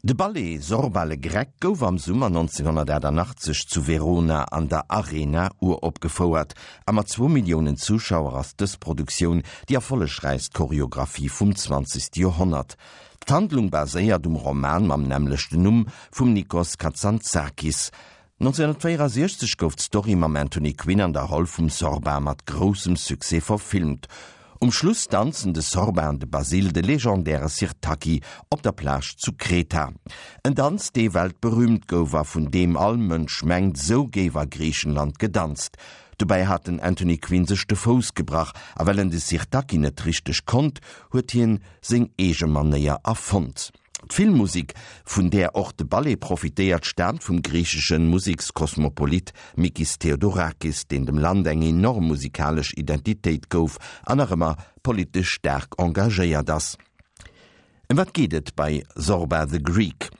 De Ballet Zorba le Grec gouf am Summer 1988 zu Verona an der Arena uropgefouert a mat zwou Milliounen Zuschauer ass dës Produktioun déi erfollegräichst Choreographie vum zwanzegste Joerhonnert. D'Handlung baséiert um Roman mam nämmlechten Numm vum Nikos Kazantzakis. 1964 gouf d'Story mam Anthony Quinn an der Roll vum Zorba mat groussem Succès verfilmt. Um Schluss danzen de Zorba an de Basil de legendäre Sirtaki op der Plage zu Kreta. En Danz, dee weltberüümt gouf a vun deem all Mënsch mengt, sou géif a Griichenland gedanzt. Dobäi hat den Anthony Quinn sech de Fouss gebrach a well en de Sirtaki net richteg konnt, huet hien seng eege Manéier erfonnt. D'Filmmusek, vun där och de Ballet profitéiert, staamt vum griichesche Musekskosmopolit Mikis Theodorakis, deen dem Land eng enorm musikalesch Identitéit gouf an nach ëmmer politesch staark engagéiert ass. Ëm wat geet et bei Zorba the Greek?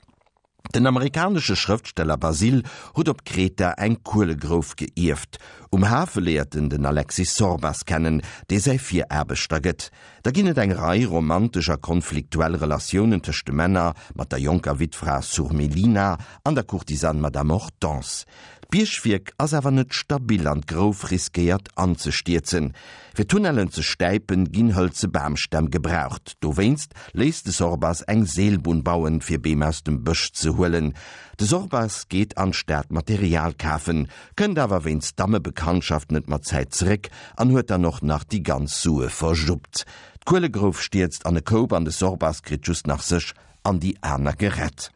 Den amerikanesche Schrëftsteller Basil huet op Kreta eng Kuelegrouf geierft. Um Hafe léiert en den Alexis Sorbas kennen, dee säi Viraarbechter gëtt. Da ginn et eng Rei romantesch a konfliktuell Relatiounen tëscht de Männer, mat der jonker Wittfra Surmelina an der Courtisane Madame Hortense. D'Biergwierk ass awer net stabil an d'Grouf riskéiert anzestierzen. Fir d'Tunnellen ze stäipen, ginn hëlze Bamstämm gebraucht. Dowéinst léisst de Sorbas eng Seelbunn bauen, fir Beem aus dem Bësch ze huelen. De Sorbas geet an d'Stad Material kafen, kënnt awer wéinst Dammebekanntschaft net mat Zäit zeréck an huet dann och nach déi ganz Sue verjuppt. D'Kuelegrouf stierzt an e Koup an de Sorbas kritt just nach sech an déi aner gerett.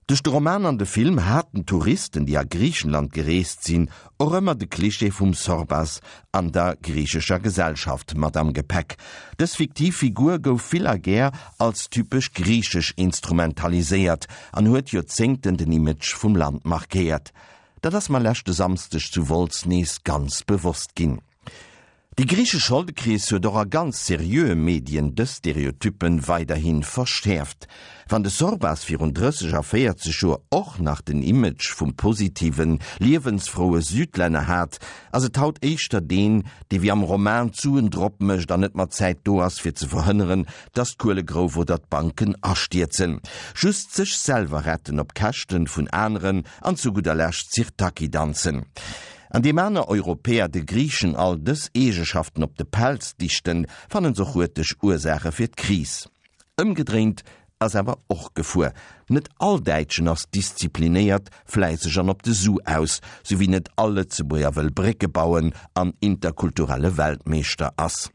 Duerch de Roman an de Film haten d'Touristen, déi a Griichenland gereest sinn, och ëmmer de Klischee vum Sorbas an der griichescher Gesellschaft mat am Gepäck. Dës fiktiv Figur gouf vill a gär als typesch griichesch instrumentaliséiert an huet Joerzéngten den Image vum Land markéiert. Dat ass mer leschte Samsdeg zu Wolz nees ganz bewosst ginn. Déi griichesch Scholdekris huet och a ganz seriöe Medien dës Stereotyppen weiderhi verschäerft. Wann de Sorbas virun 30 a 40 Joer och nach den Image vum positiven, liewensfroue Südlänner hat, ass et haut éischter deen, dee wéi am Roman d'Suen drop mécht an net mat Zäit do ass fir ze verhënneren, dass d'Kuelegrouf oder d'Banken astierzen. Just sech selwer retten op Käschten vun aneren an zu gudder Lescht Sirtaki danzen. An deem aner Europäer de Griichen all dës Eegeschaften op de Pelz dichten, fannen s'och huerteg Ursaache fir d'Kris. Ëmgedréint ass awer och gefuer. Net all Däitschen ass disziplinéiert, fläisseg an op de Su aus, sou wéi net all Lëtzebuerger wëll Brécke bauen an interkulturelle Weltmeeschter ass.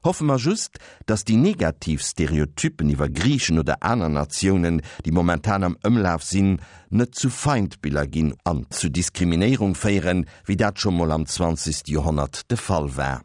Hoffe mer just, dass déi negativ Stereotypen iwwer Griichen oder aner Natiounen, déi momentan am Ëmlaf sinn, net zu Feindbiller ginn an zu Diskriminéierung féieren, wéi dat scho mol am zwanzegste Joerhonnert de Fall war.